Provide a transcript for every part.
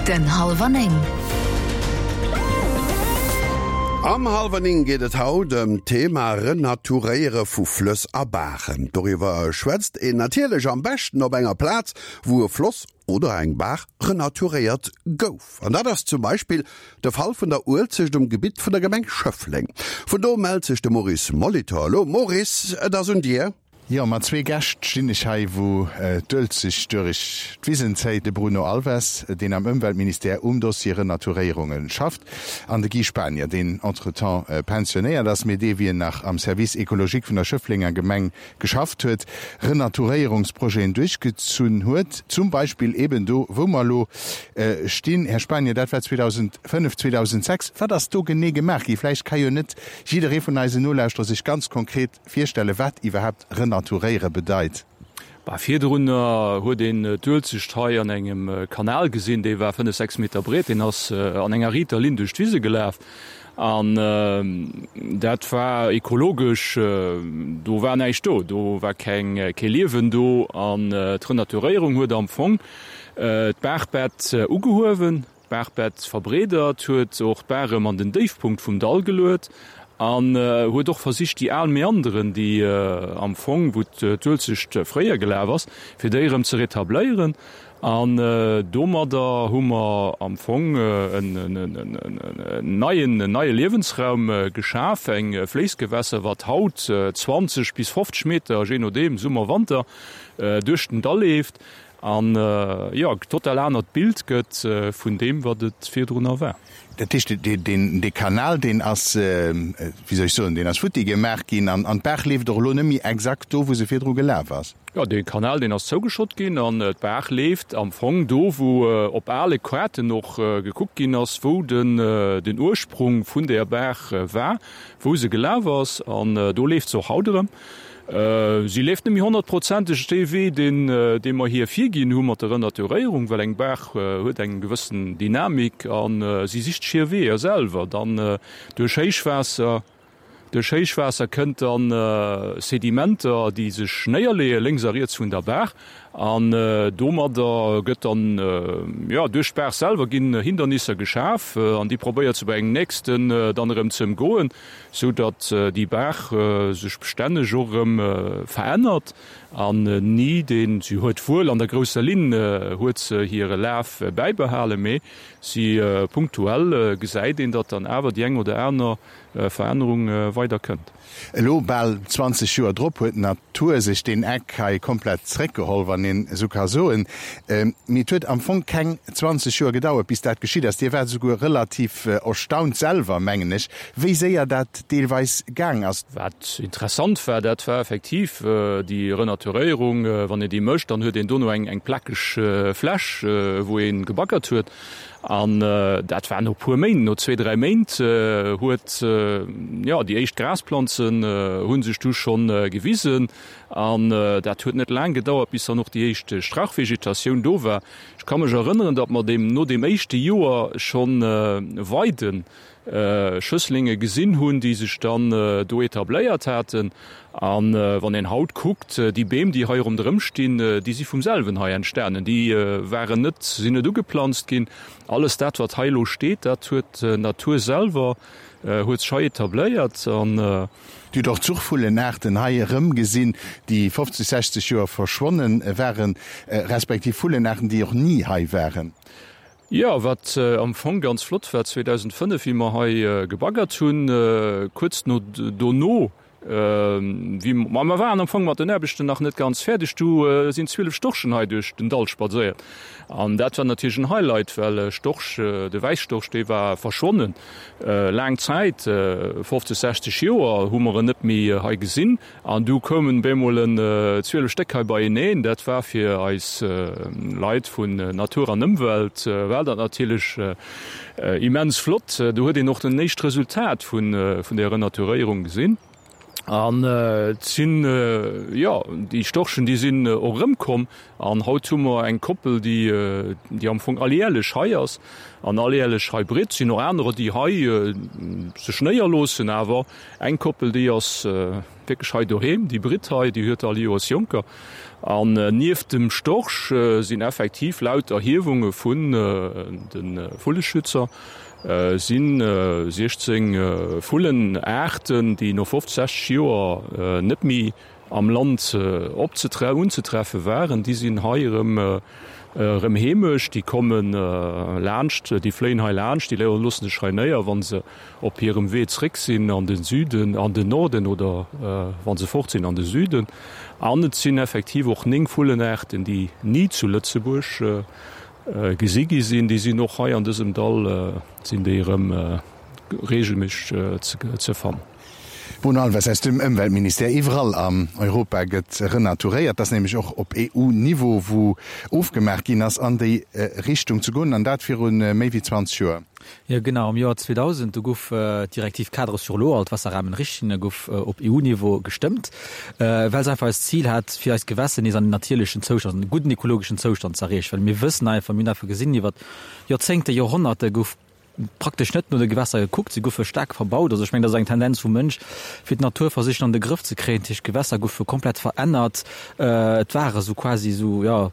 Den Hallwer 9. Am Hallwer 9 geet et haut ëm d'Thema Renaturéiere vu Flëss a Baachen. Doriwwer schwätzt een natierlech am beschten op enger Plaz, wou e Floss oder eng Baach renaturéiert gouf. An dat ass zum Beispill de Fall vun der Uelzecht um Gebitt vun der Gemeng Schëffleng. Vun do mellt sech de Maurice Molitor elo. Maurice, et ass un dir. Jo, mat zwee Gäscht stinn ech hei, wou d'Uelzecht duerch d'Wisen zéit, de Bruno Alves, deen am Ëmweltministère um Dossier Renaturéierunge schafft, an de Guy Spanier, deen entretemps pensionéiert ass, mee dee wéi en nach am Service écologique vun der Schëfflenger Gemeng geschafft huet, Renaturéierungsprojeten duerchgezunn huet, zum Beispill eben do, wou mer elo stinn. Här Spanier, dat war 2005, 2006. Wat ass do genee gemaach gi? Vläicht ka jo net jidderee vun eisen Nolauschterer sech ganz konkret Virstellen, wat iwwerhaapt renaturéiere bedeit. Bah, virdrunner huet een d'Uelzecht hei an engem Kanal gesinn, dee war 5, 6 Meter breet, deen ass an enger riiter Linn duerch d'Wise gelaf an dat war ekologesch, do war näischt do, do war keng, kee Liewen do an d'Renaturéierung huet am Fong d'Baachbett ugehuewen. D'Baachbett verbreedert, huet och d'Baach erëm an den Déifpunkt vum Dall geluet an huet och versicht déi al Meanderen, déi am Fong, wou d'Uelzecht fréier gelaf ass, fir déi erëm ze retabléieren. An domadder hu mer am Fong en neien, en neie Liewensraum geschaf, eng Fléissgewässer, wat haut 20 bis 50 Meter, jee nodeem, Summer, Wanter, duerch den Dall leeft. An jo, e total anert Bild gëtt vun deem, wat et virdrunner war. Dat heescht, dee Kanal, deen ass, wéi soll ech soen, deen ass futti gemaach ginn an d'Baach leeft och elo net méi exakt do, wou se virdru gelaf ass? Jo, dee Kanal, deen ass zougeschott ginn an d'Baach leeft am Fong do, wou op ale Kaarten och gekuckt ginn ass, wou den Ursprung vun där Baach war, wou se gelaf ass. An do leeft se och haut erëm. Si leeft net méi honnertprozenteg dee Wee, deen dee mer hir virginn hu mat der Renaturéierung, well eng Baach huet eng gewëssen Dynamik a si sicht sech hir Weeër selwer. Dann duerch Héichwaasser, duerch Héichwaasser kënnt dann Sedimenter, déi sech néierleeë lénks a riets vun der Baach an domadder gëtt dann, jo, duerch d'Baach selwer ginn Hindernisser geschaf an déi probéiert se bei engem nächsten dann erëm ze ëmgoen. sou datt déi Baach sech bestänneg och erëm verännert an ni deen, si huet wuel an der grousser Linn huet se hire Laf bäibehalen, mee si punktuell gesäit een, datt dann awer déi eng oder aner Verännerung weider kënnt. Elo, bal 20 Joer drop, huet d'Natur sech deen Eck hei komplett zréckgeholl, wann een esou ka soen. Mee et huet am Fong keng 20 Joer gedauert, bis dat geschitt ass. Dir waart esouguer relativ erstaunt selwer, mengen ech, wéi séier dat deelweis gaang ass. Wat interessant war, dat war effektiv déi Renaturéierung. Wann een déi mécht, dann huet een dono eng plakeg Fläch, wou ee gebaggert huet. An dat war no puer Méint, no zwee, dräi Méint huet, jo, déi éischt Grasplanzen hu sech du schonn gewisen. An dat huet net laang gedauert, bis dann och déi éischt Strauchvegetatioun do war. Ech ka mech erënneren, datt mer deem no deem éischte Joer schonn Weiden Schësslinge gesinn hunn, déi sech dann do etabléiert haten. A wann een haut kuckt, déi Beem, déi hei ronderëm stinn, déi si vum selwen hei entstanen. Déi waren net, sinn net ugeplanzt ginn. Alles dat, wat hei elo steet, dat huet d'Natur selwer huet sech hei etabléiert. An. Dir hutt och Zuchvullenaarten hei erëmgesinn, déi 50, 60 Joer verschwonnen waren, respektiv Vullenaarten, déi och ni hei waren. Jo, wat am Fong ganz flott war, 2005, wéi mer hei gebaggert hunn, kuerz no dono, wéi mer, mer waren am Fong mat den Aarbechten nach net ganz fäerdeg, du sinn 12 Storchen hei duerch den Dall spadséiert. An dat war natierlech en Highlight, well Storch, de Wäisstorch, dee war verschwonnen laang Zäit, 50, 60 Joer hu mer en net méi hei gesinn. An du koumen bemol en 12 Stéck hei beieneen. Dat war fir eis Leit vun Natur an Ëmwelt war dat natierlech immens flott. Do huet een och den éischt Resultat vun der Renaturéierung gesinn. An et sinn, jo, déi Storchen, déi sinn och erëmkomm. An haut hu mer eng Koppel, déi, déi am Fong alljährlech hei ass an alljährlech hei britt. Et sinn och anerer, déi hei sech néierloossen, awer eng Koppel, déi ass. wierklech hei doheem. Déi britt hei, déi huet all Joers Jonker. An nieft dem Storch sinn effektiv laut Erhiewunge vun de Vulleschützer si 16 Vullenaarten, déi no 50, 60 Joer net méi am Land unzetreffe waren, déi sinn hei erëm erëm heemesch. Déi komme laanscht, déi fléien hei laanscht, déi loosse sech hei néier, wa se op hirem Wee zréck sinn an de Süden, an den Norden oder wa se fort sinn an de Süden. An et sinn effektiv och 9 Vullenaarten, déi ni zu Lëtzebuerg gesi gi sinn. Déi sinn och hei an dësem Dall sinn déi erëm reegelméisseg ze fannen. Bruno Alves aus dem Ëmweltministère, Iwwerall an Europa gëtt renaturéiert. Dat ass nämlech och op EU-Niveau, wou ofgemaach ginn ass, an déi Richtung ze goen, an dat viru méi wéi 20 Joer. Jo genau, am Joer 2000, do gouf d'Directive cadre sur l'eau, all d'Wasserrahmenrichtlinie gouf op EU-Niveau gestëmmt, well se einfach eist Zil hat, fir eis Gewässer nees an en natierlechen Zoustand, an e gudden ekologeschen Zoustand ze erreechen. Well mir wëssen einfach, mir hunn einfach gesinn, iwwer Joerzéngte, Joerhonnerte gouf praktesch net no de Gewässer gekuckt, se goufe staark verbaut. Also ech mengen, dat ass eng Tendenz vum Mënsch, fir d'Natur versichen an de Grëff ze kréien. Dat heescht, d'Gewässer goufe komplett verännert. Et ware sou quasi sou, jo,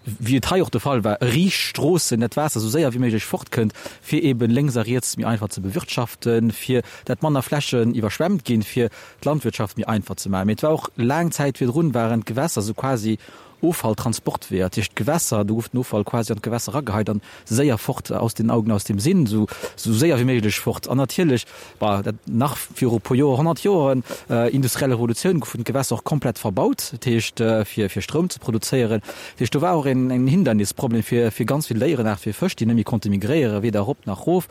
wéi et hei och de Fall war, riicht Stroossen, dat d'Waasser sou séier wéi méiglech fortkënnt, fir eeben lénks a riets méi einfach ze bewirtschaften, fir dat manner Flächen iwwerschwemmt ginn, fir d'Landwirtschaft méi einfach ze maachen. Mee et war och laang Zäit virdrun waren d'Gewässer sou quasi Offalltransportweeër, dat heescht d'Gewässer, do gouf den Offall quasi an d'Gewässer erageheit an séier fort, aus den Augen, aus dem Sinn, esou séier wéi méiglech fort. An natierlech, bah, dat nach viru e puer Joer, 100 Joeren, industriell Revolutioun, goufen d'Gewässer och komplett verbaut, dat heescht fir fir Stroum ze produzéieren. Dat heescht do war och een en Hindernisproblem fir fir ganz vill Déierenaarte, fir Fësch, déi net méi konnte migréieren, weder erop nach erof.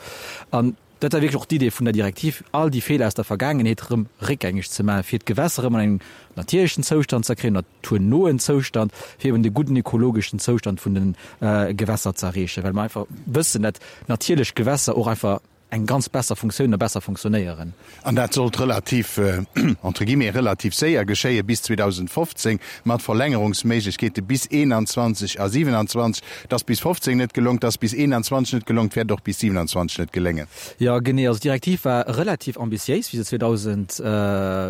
An dat war wierklech och d'Idee vun der Direktiv, all déi Feeler aus der Vergaangenheet erëm réckgängeg ze maachen, fir d'Gewässer erëm an engem natierlechen Zoustand ze kréien, naturnoen Zoustand, fir eben de gudden ekologeschen Zoustand vun de Gewässer ze erreechen, well mer einfach wëssen, dat natierlech Gewässer och einfach eng ganz besser Funktioun a besser funktionéieren. An dat sollt relativ, entre guillemets, relativ séier geschéien, bis 2015, mat Verlängerungsméiglechkeete bis 21 a 27. Et ass bis 15 net gelongt, et ass bis 21 net gelongt, wäert och bis 27 net geléngen. Jo, genee. Also d'Direktiv war relativ ambitiéis, wéi se 2000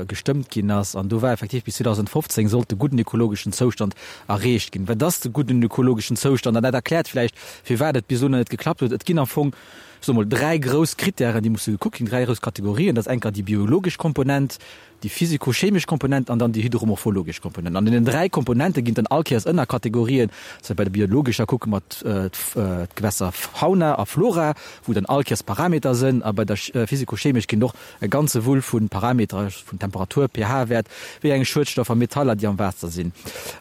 gestëmmt ginn ass. An do war effektiv bis 2015 sollt de gudden ökologeschen Zoustand erreecht ginn. Wat ass de gudden ökologeschen Zoustand? An dat erkläert vläicht, firwat et bis elo nach net geklappt huet. Et ginn am Fong, ech soe mol, dräi grouss Krittären, déi musse gekuckt ginn, dräi grouss Kategorien. Dat ass enker déi biologesch Komponent, déi physikochemesch Komponent an dann déi hydromorphologesch Komponent. An deenen dräi Komponente ginn et dann all Kéiers Ënnerkategorien. Also bei der biologescher kucke mer d'Gewässerfauna a Flora, wou dann all Kéiers Parameter sënn. A bei der physikochemesch ginn et och e ganze Wull vu Parameter, vun Temperatur, pH-Wäert, wéi eng Schuedstoffer, Metaller, déi am Waasser sinn.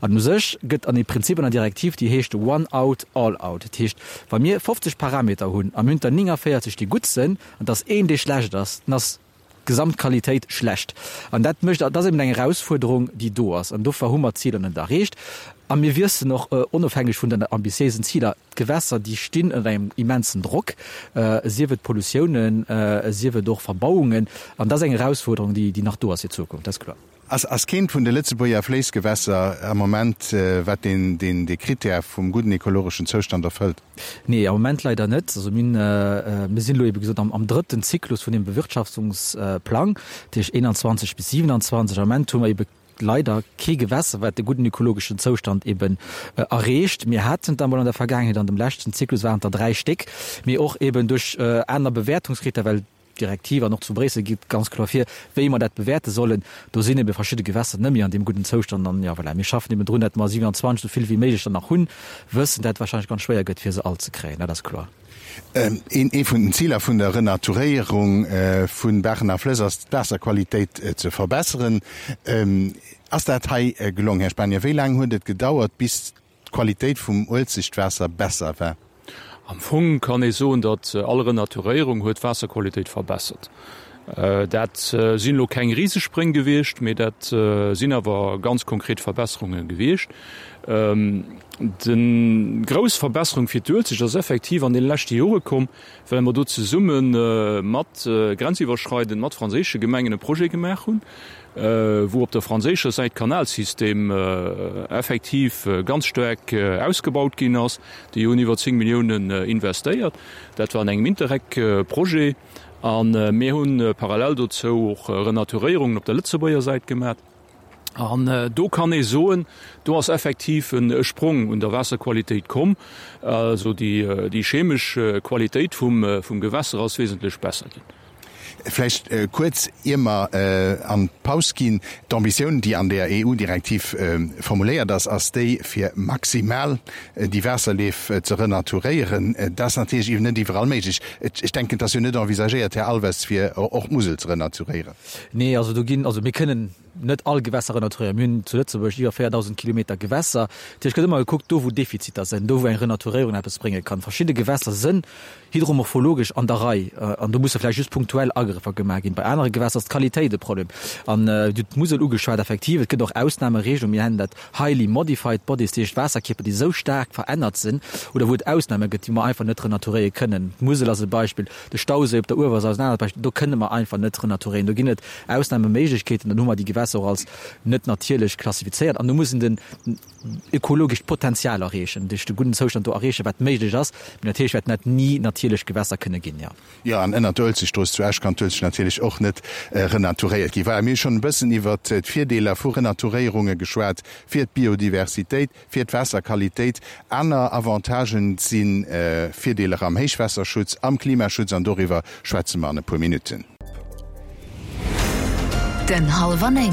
An u sech gëtt an e Prinzip an der Direktiv, déi heescht one out, all out. Dat heescht, wa mir 50 Parameter hunn a mir hunn der 49, déi gutt sënn, an et ass een, dee schlecht ass, dann ass d'Gesamtqualitéit schlecht. An dat mécht, dat ass eben eng Erausfuerderung, déi do ass. An dofir hu mer d'Ziler net erreecht. A mir wissen och, onofhängeg vun den ambitiéisen Ziler, d'Gewässer, déi stinn ënner engem immensen Drock, sief et Pollutiounen, sief et och Verbauungen. An dat ass eng Erausfuerderung, déi, déi nach do ass fir d'Zukunft, dat ass kloer. Ass keent vun de Lëtzebuerger Fléissgewässer am Moment, wat deen, deen, dee Krittär vum gudden ekologeschen Zoustand erfëllt? Nee, am Moment leider net. Also mir hunn, mir sinn elo ebe gesot am, am drëtten Zyklus vun deem Bewirtschaftungsplang, dat heescht 21 bis 27. Am Moment hu mer ebe leider kee Gewässer, wat de gudden ökologeschen Zoustand eben erreecht. Mir haten et emol an der Vergaangenheet, an dem leschten Zyklus waren et der dräi Stéck, mee och eben duerch aner Bewäertungskrittären, well d'Direktiv an och zu Bréissel geet ganz kloer vir, wéi mer dat bewäerte sollen. Do sinn ebe verschidde Gewässer net méi an deem gudden Zoustand. An, jo, voilà, mir schaffen eben drun, datt mer 27 esou vill wéi méiglech der nach hunn, wëssen, dat et wahrscheinlech ganz schwéier gëtt, fir se all ze kréien, dat ass kloer. Ee vun den Ziler vun der Renaturéierung vu Baachen a Flëss ass, d'Waasserqualitéit ze verbesseren. Ass dat hei gelong, Här Spanier? Wéi laang huet et gedauert, bis d'Qualitéit vum Uelzechtwaasser besser war? Am Fong kann ee soen, datt all Renaturéierung huet d'Waasserqualitéit verbessert. Dat sinn elo keng Risespréng gewiescht, mee dat sinn awer ganz konkret Verbesserunge gewiescht. Déi grouss Verbesserung fir d'Uelzecht ass effektiv an deene leschte Jore komm, well mer do zesumme mat grenziwwerschreidend mat franséische Gemengen e Projet gemaach hunn, wou op der franséischer Säit d'Kanalsystem effektiv ganz staark ausgebaut ginn ass. Déi hunn iwwer 10 Milliounen investéiert. Dat war an engem Interreg-Projet. A mir hu parallel dozou och Renaturéierungen op der Lëtzebuerger Säit gemaach. An do kann ee soen, do ass effektiv e Sprong un der Waasserqualitéit komm. Also déi chemesch Qualitéit vum Gewässer ass wesentlech besser ginn. Vläicht kuerz, ier mer an d'Paus ginn, D'Ambitioun, déi an där EU-Direktiv formuléiert ass, ass déi, fir maximal déi Waasserleef ze renaturéieren. Dat ass natierlech iwwer net iwwerall méiglech. Ech denken, et ass jo net envisagéiert, Här Alves, fir och d'Musel ze renaturéieren. Nee, also do ginn, also mir kënnen net all Gewässer renaturéieren. Mir hunn zu Lëtzebuerg iwwer 4.000 Kilometer Gewässer. Dat heescht, et gëtt ëmmer gekuckt, do wou Defiziter sinn, do wou eng Renaturéierung eppes brénge kann. Verschidde Gewässer sënn hydromorphologesch an der Rei an do musse vläicht just punktuell Agrëffer gemaach ginn. Bei anere Gewässer ass d'Qualitéit e Problem. An Dir hutt d'Musel ugeschwat, effektiv, et gëtt och Ausnameregelungen, mir nennen dat highly modified bodies, dat heescht Waasserkierper, déi esou staark verännert sinn oder wou et Ausname gëtt, déi mer einfach net renaturéiere kënnen. D'Musel ass e Beispill. De Stauséi op der Uewersaur ass en anert Beispill. Do kënne mer einfach net renaturéieren. Do ginn et Ausnameméiglechkeeten. Dann hu mer déi Gewässer och als net natierlech klassifizéiert. An do muss een den ökologescht Potenzial erreechen, duerch de gudden Zoustand do erreechen, wat méiglech ass. Mee natierlech wäerten dat ni natierlech Gewässer kënne ginn, jo. Jo, an ënnert der Uelzechtstrooss zu Esch kann d'Uelzecht natierlech och net renaturéiert ginn. Voilà, mir hu schonn e bëssen iwwert d'Virdeeler vu Renaturéierunge geschwat fir d'Biodiversitéit. Fir d'Waasserqualitéit. Aner Avantagen si Virdeeler am Héichwaasserschutz, am Klimaschutz an doriwwer schwätze mer an e puer Minutten. Den Hallwer 9.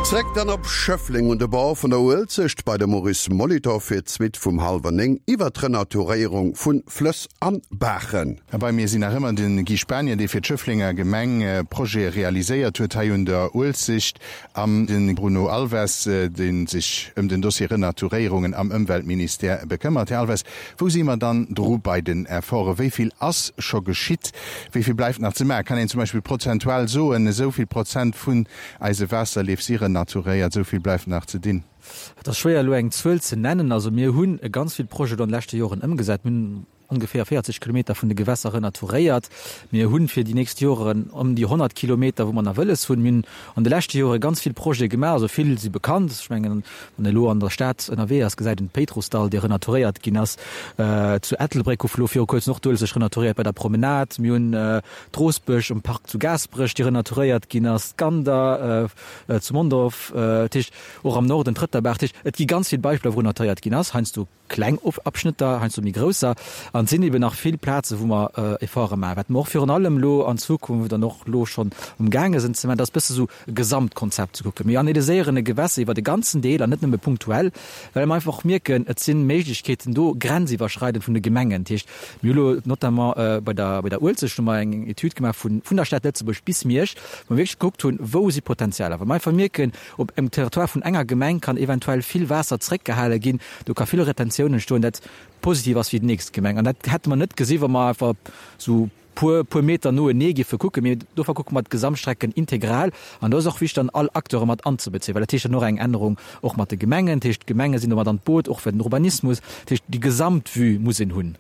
Zréck dann op Schëffleng un de Bord vun der Uelzecht bei de Maurice Molitor fir d'Suite vum Hallwer 9 iwwer d'Renaturéierung vu Flëss an Baachen. A bei mir sinn nach ëmmer de Guy Spanier, dee fir d'Schëfflenger Gemeng Projete realiséiert huet hei un der Uelzecht, An de Bruno Alves, dee sech ëm den Dossier Renaturéierungen am Ëmweltministère bekëmmert. Här Alves, wou si mer dann dru bei den Efforten? Wéi vill ass scho geschitt? Wéi vill bleift nach ze maachen? Kann een zum Beispill prozentual soen, esou vill Prozent vun eise Waasserleef si renaturéiert, esou vill bleift nach ze dinn? Et ass schwéier elo eng Zuel ze nennen. Also mir hunn ganz vill Projete an de leschte Joren ëmgesat. Mir hunn ongeféier 40 Kilometer vun de Gewässer renaturéiert. Mir hunn fir déi nächst Joren ëm déi 100 Kilometer, wou mer nach wëlles hunn. Mir hunn an de leschte Jore ganz vill Projete gemaach, also vill si bekannt. Ech mengen, wann ee elo an der Stad ënnerwee ass, gesäit een d'Péitrussdall, déi renaturéiert ginn ass. Zu Ettelbréck gouf elo viru kuerzem och d'Uelzecht renaturéiert bei der Promenade. Mir hunn d'Roosbech um Park zu Gaasperech, déi renaturéiert ginn ass, d'Gander zu Mondorf, dat heescht och am Norden d'Rëtterbaach. Dat heescht, et gi ganz vill Beispiller, wou renaturéiert ginn ass, heiansdo. Kleng Abschnëtter, heiansdo méi grousser, an et sinn eben nach vill Plaze wou mer Efforte maachen. Wat mer och virun allem elo an Zukunft an och elo schonn um gaange sinn ze maachen, dat ass bësse sou e Gesamtkonzept ze kucken. Mir analyséieren e Gewässer iwwer e ganzen Deel an net nëmme punktuell, well mer einfach och mierken, et si Méiglechkeeten do, grenziwwerschreidend vun de Gemengen. Dat heescht, mir hu elo notamment bei der bei der Uelzecht hu mer eng Etüd gemaach vun vun der Stad Lëtzebuerg bis Miersch, wou mer wierklech gekuckt hunn, wou si Potenzialer, well mer einfach mierken, Op engem Territoire vun enger Gemeng kann eventuell vill Waasser zréckgehale ginn, do ka vill Retentioun entstoen, dat positiv ass fir déi nächst Gemeng. An dat hätte mer net gesi wa mer einfach esou puer, puer Meter noenee géife kucken. Mee dofir kucke mer d'Gesamtstrecken integral. An do ass och wichteg dann all Acteure mat anzebezéien, well dat heescht dann och eng Ännerung och mat de Gemengen. Dat heescht, d'Gemenge sinn do mat an d'Boot, och fir den Urbanismus. Dat heescht, déi Gesamtvue muss een hunn.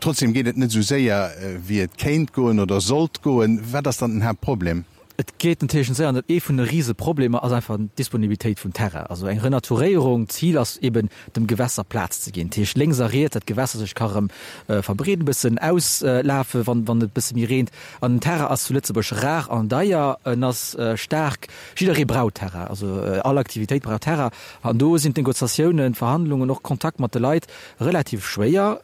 Trotzdem geet et net esou séier, wéi et kéint goen oder sollt goen. Wat ass dann den Haaptproblem? Et geet natierlech net séier an ee vun de Riseproblemer ass einfach d'Disponibilitéit vum Terrain. Also eng Renaturéierung, d'Zil ass eben dem Gewässer Plaz ze ginn, dat heescht lénks a riets, dat d'Gewässer sech ka rëm verbreeden, e bëssen auslafen, wann wann et e bësse méi reent. An den Terrain ass zu Lëtzebuerg rar an deier, en ass staark, jidderee brauch Terrain, also all Aktivitéit brauch Terrain an do sinn d'Negociatiounen, d'Verhandlungen, och Kontakt mat de Leit Relativ schwéier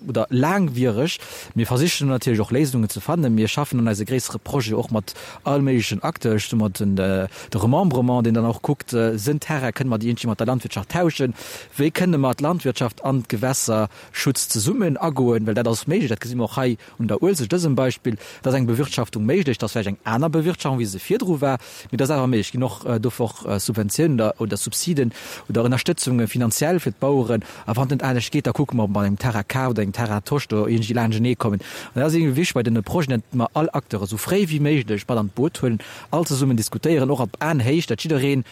oder laangwiereg. Mir versichen natierlech och Léisungen ze fannen. Mir schaffen an eise gréissere Projet och mat all méiglechen Acteuren. Ech soe mer den de Remembrement, deen dann och kuckt, sënn Terrain, kënne mer déi iergendwéi mat der Landwirtschaft tauschen? Wéi kënne mer d'Landwirtschaft an d'Gewässerschutz zesummen agoen? Well dat ass méiglech, dat gesi mer och hei un der Uelzecht, dësem Beispill. Et ass eng Bewirtschaftung méiglech, et ass vläicht eng aner Bewirtschaftung, wéi se virdru war, mee et ass awer méiglech. Et ginn och dofir och Subventiounen oder, oder Subsiden oder Ënnerstëtzunge finanziell fir d'Baueren. A wann et net anescht geet, da kucke mer, ob mer mat engem Terrain kaf oder engem Terrain tosch do iergendwéi laanschtenee kommen. An dat ass iergendwéi wichteg bei deene Projeten, datt mer all Acteure sou fréi wéi méiglech mat an d'Boot huelen, all zesummen diskutéieren, och op Aenhéicht, datt jiddereen.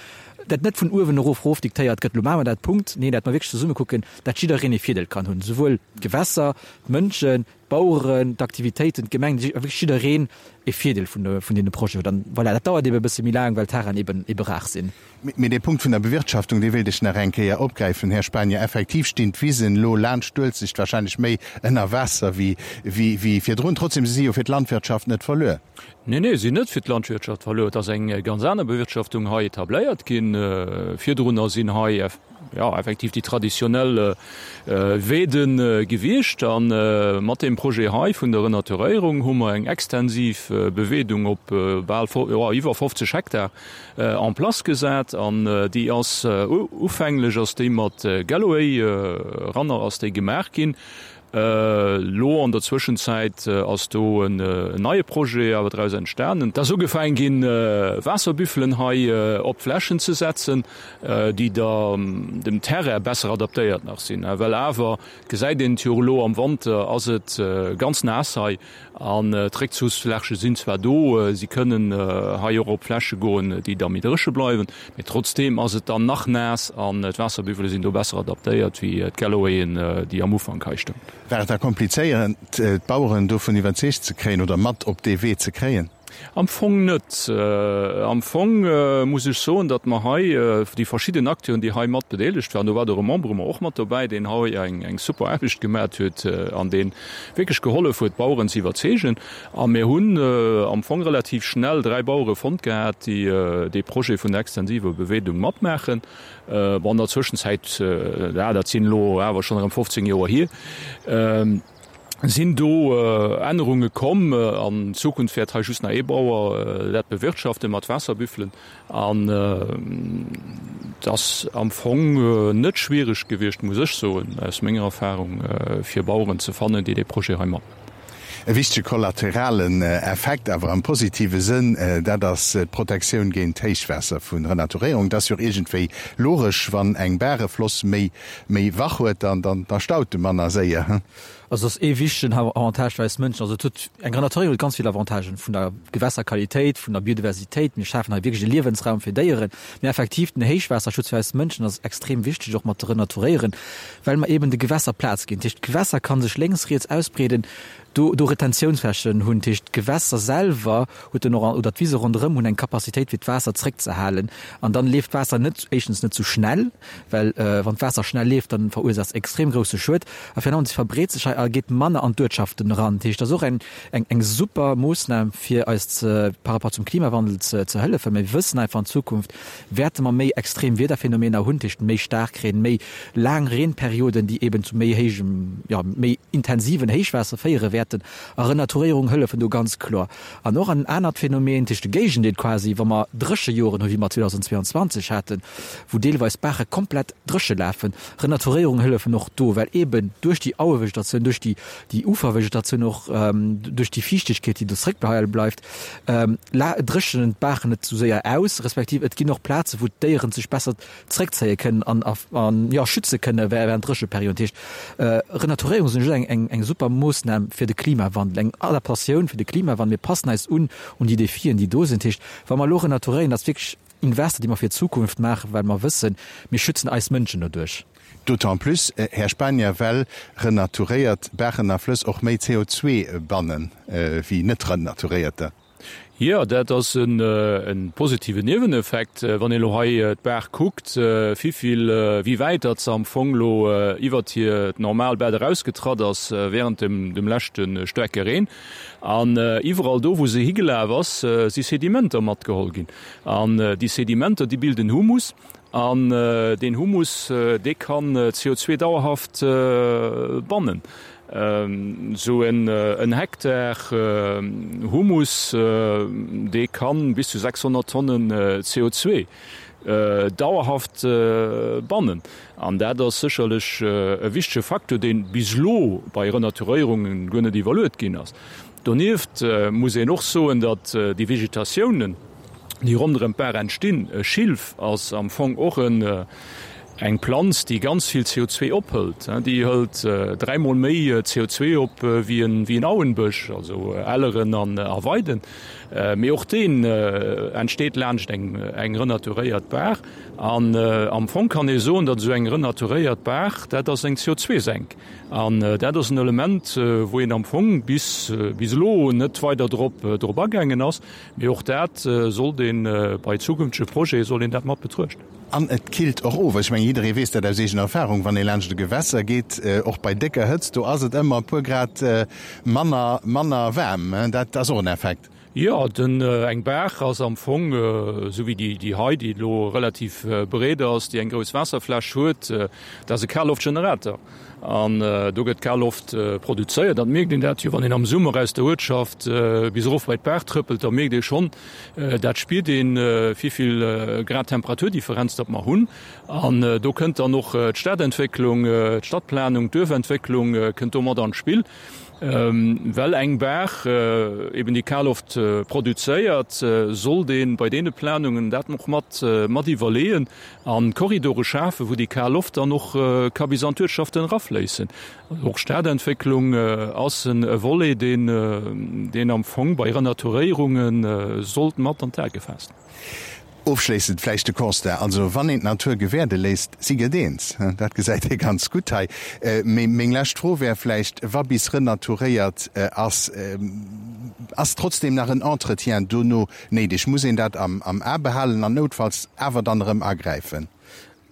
Dat net vun uewen erof erof diktéiert gëtt, lo maache mer dat, Punkt. Nee, dat mer wierklech zesumme kucken, dat jiddereen ee Virdeel kann hunn, souwuel d'Gewässer, d'Mënschen, d'Baueren, d'Aktivitéiten, d'Gemeng, wierklech jiddereen e Virdeel vun vun deene Projeten huet. An voilà, dat dauert eebe e bësse méi laang, well d'Terrainen eeben ebe rar sinn. Mee dee Punkt vun der Bewirtschaftung, dee wéilt ech nach eng Kéier opgräifen, Här Spanier. Effektiv stinn d'Wisen elo laanscht d'Uelzecht wahrscheinlech méi ënner Waasser wéi virdrun. Trotzdem, se si jo fir d'Landwirtschaft net verluer. Nee, nee, si sinn net fir d'Landwirtschaft verluer. Et ass eng ganz aner Bewirtschaftung hei etabléiert ginn. Virdrunner sinn hei, jo, effektiv déi traditionell Weede gewiescht. A mat deem Projet hei vun der Renaturéierung hu mer eng extensiv Beweedung op bal, jo, iwwer 50 Hektar en place gesat. An déi ass, ufänglech ass déi mat Galloway-Ranner ass déi gemaach ginn. Elo an der Zwëschenzäit ass do en neie Projet awer draus entstanen. Et ass ugefaangen ginn, Waasserbüffelen hei op d'Flächen ze setzen, déi da dem Terrain besser adaptéiert nach sinn. Well awer, gesäit een et jo elo am Wanter, ass et ganz naass hei an d'Réckzuchsfläche sinn zwar do, si kënnen hei och op Fläche goen, déi da méi dréche bleiwen, mee trotzdeem ass et dann nach naass an d'Waasserbüffele sinn do besser adaptéiert wéi d'Gallowayen, déi am Ufank hei stoungen. War et da komplizéiert, d'Baueren dovun iwwerzeegt ze kréien oder mat op dee Wee ze kréien? Am Fong net. Am Fong muss ech soen, datt mer hei déi verschidden Acteuren, déi hei mat bedeelegt waren, do war de Remembrement och mat dobäi, deen hei eng super Aarbecht gemat huet an dee wierklech gehollef huet, d'Baueren ze iwwerzeegen. A mir hunn am Fong relativ schnell 3 Bauere fonnt gehat, déi dee Projet vun der extensiver Beweedung matmaachen. Bon, an der Zwëschenzäit, dat sinn elo awer schonn erëm 15 Joer hier, sinn do Ännerunge komm. An Zukunft wäert hei just nach ee Bauer dat bewirtschaften mat Waasserbüffelen. An et ass am Fong net schwiereg gewiescht, muss ech soen, aus menger Erfahrung, fir Baueren ze fannen, déi dee Projet hei matmaachen. E wichtege kollateralen Effekt, awer am positive Sënn, dat ass d'Protektioun géint Héichwaasser vu Renaturéierung. Et ass jo och iergendwéi logesch, wann eng Baach e Floss méi méi wach huet, dann da staut e manner séier. Also ass ee wichtegen Avantage fir eis Mënschen. Also et huet, eng Renaturéierung huet ganz vill Avantagen, vun der Gewässerqualitéit, vun der Biodiversitéit, mir schafen hei wierklech e Liewensraum fir Déieren, mee effektiv den Héichwaasserschutz fir eis Mënschen ass extrem wichteg, och mat ze renaturéieren, well mer eben de Gewässer Plaz ginn. Dat heescht, d'Gewässer ka sech lénks, riets ausbreeden, do do Retentiounsflächen hunn. Dat heescht, d'Gewässer selwer huet dann och, oder d'Wise ronderëm hunn eng Capacitéit fir d'Waasser zréckzehalen an dann leeft d'Waasser net, éischtens net sou schnell, well wann d'Waasser schnell leeft, dann verursaacht es extrem grousse Schued a virun allem se verbreet sech hei a geet manner an d'Uertschaften eran. Dat heescht, dat ass och eng eng eng super Moossnam fir eis ze par rapport zum Klimawandel ze ze hëllefen. Mir wëssen einfach an Zukunft wäerte mer méi extrem Wiederphänomener hunn, dat heescht méi Staarkreen, méi laang Reenperioden, déi eben zu méi héijem, jo méi intensiven Héichwaasser féiere wäerten a Renaturéierung hëllefen do ganz kloer. An och en anert Phänomen, dat heescht de Géigendeel quasi, wa mer Dréchejoren hu wéi mer 2022 haten, wou deelweis Baache komplett dréche lafen. Renaturéierung hëllefen och do, well eeben duerch déi Auevegetatioun, duerch déi déi Ufervegetatioun och, duerch déi Fiichtegkeet, déi do zréckbehale bleift, dréchnen d'Baachen net esou séier aus, respektiv et ginn och Plaze wou d'Déieren sech besser zréckzéie kënnen an an jo schütze kënne während Drécheperioden. Dat heescht, Renaturéierung sinn just eng eng eng super Moossnam fir de Klimawandel, eng Adaptatioun fir de Klimawandel. Mir passen eis un un déi Defien, déi do sinn. Dat heescht, wa mer elo renaturéieren, dat ass wierklech Invester, déi mer fir d'Zukunft maachen, well mer wëssen, mir schützen eis Mënschen doduerch. D'autant plus, Här Spanier, well renaturéiert Baachen a Flëss och méi CO2 bannen wéi net renaturéierter. Jo, dat ass e positiven Nieweneffekt. Wann een elo hei d'Baach kuckt, vivill, wéi wäit datt se am Fong elo iwwert hiert normal Bett erausgetratt ass während dem leschte staarke Reen. An iwwerall do, wou se higelaf ass, si Sedimenter matgeholl ginn. An déi Sedimenter, déi bilden Humus. An deen Humus, dee kann CO2 dauerhaft bannen. Esou en Hektar Humus, dee kann bis zu 600 Tonnen CO2 dauerhaft bannen. An dat ass sécherlech e wichtege Facteur, dee bis elo bei Renaturéierungen guer net iwwerluet ginn ass. Donieft muss een och soen, datt déi Vegetatiounen, déi ronderëm d'Baach entstinn, e Schilf ass am Fong och en. Eng Planz, déi ganz vill CO2 ophëlt, déi hëlt dräimol méi CO2 op wéi en Auenbësch, also Elleren a Weiden. Mee och deen entsteet laanscht eng renaturéiert Baach. An am Fong kann ee soen, datt esou eng renaturéiert Baach, dat ass eng CO2-Senk. An dat ass en Element, wou een am Fong bis elo net weider drop agaangen ass. Mee och dat sollt ee bei zukünftege Projete soll een dat mat betruechten. An et killt och of. Ech mengen, jidderee weess dat aus eegener Erfahrung, wann ee laanscht e Gewässer geet, och bei décker Hëtzt, do ass et ëmmer e puer Grad manner, manner waarm. Dat ass och en Effekt. Jo, den, eng Baach ass am Fong, esou wéi déi, déi hei, déi elo relativ breet ass, déi eng grouss Waasserfläch huet, dat ass e Kalloftgenerator. An do gëtt kal Loft produzéiert. Dat mierkt een dat jo, wann een am Summer aus der Uertschaft bis erof bei d'Baach trëppelt, da mierkt ee schonn, dat spiert een, wéivill Grad Temperaturdifferenz datt mer hunn. An do kënnt dann och d'Stadentwécklung, d'Stadtplanung, d'Duerfentwécklung kënnt do mat an d'Spill. Well eng Baach eben déi kal Loft produzéiert, sollt ee bei deene Planungen dat och mat mat iwwerleeën an Korridore schafen, wou déi kal Loft dann och ka bis an d'Uertschaften erafléissen. Och Stadentwécklung ass e Volet, deen deen am Fong bei Renaturéierunge sollt mat an d'A gefaasst. Ofschléissend vläicht de Constat, also wann een d'Natur gewäerde léisst, si gëtt eens. Dat gesäit ee ganz gutt hei. Mee meng lescht Fro wär vläicht, wa bis renaturéiert ass, ass trotzdem nach en Entretien dono néideg? Muss een dat am A behalen an noutfalls awer dann erëm agräifen?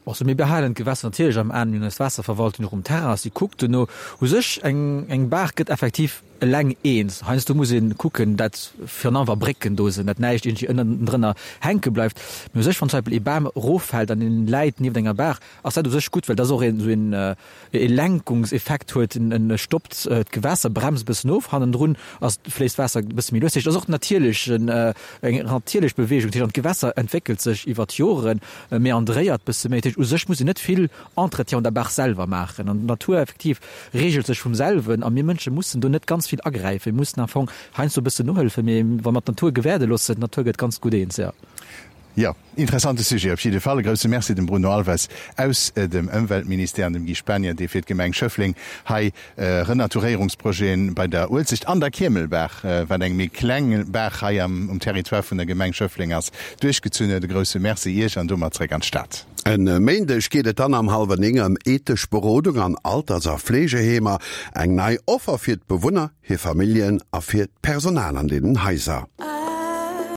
Also mir behalen d'Gewässer natierlech am Aen, mir hunn eis Waasserverwaltung och um Terrain, si kuckt dono. U sech, eng eng Baach gëtt effektiv eleng eens. Heiansdo muss ee kucken, dat virun allem wa Brécken do sinn, dat näischt iergendwéi ënnendrënner hänke bleift. Mee u sech, wann zum Beispill ee Bam eroffält an en läit nieft enger Baach, ass dat u sech gutt, well dat och een esou een e Lenkungseffekt huet, en stoppt d'Gewässer, bremst e bëssen of, hannendrun ass fléisst d'Waasser e bësse méi lues. Dat heescht, et ass och natierlech eng natierlech Beweegung. Dat heescht, an d'Gewässer entwéckelt sech iwwer d'Joren, meandréiert bësse méi. Dat heescht, u sech muss een net vill Entretien un der Baach selwer maachen an d'Natur effektiv reegelt sech vum selwen a mir Mënsche mussen do net ganz vill agräifen. Mir mussen am Fong heiansdo e bëssen nohëllefen, mee wa mer d'Natur gewäerde loossen, d'Natur gëtt ganz gutt eens, jo. Jo, interessante Sujet op jidde Fall. E grousse Merci dem Bruno Alves aus dem Ëmweltministère an dem Guy Spanier, dee fir d'Gemeng Schëffleng hei Renaturéierungsprojeten bei der Uelzecht an der Kiemelbaach, wat eng méi kleng Baach hei am um Territoire vun der Gemeng Schëffleng ass, duerchgezunn huet. E grousse Merci Iech an domat zréck an d'Stad. E Méindeg geet et dann am hallwer 9 ëm ethesch Berodung an Alters a Fleegeheemer. Eng nei Offer fir d'Bewunner, hir Familljen a fir d'Personal an deenen Haiser.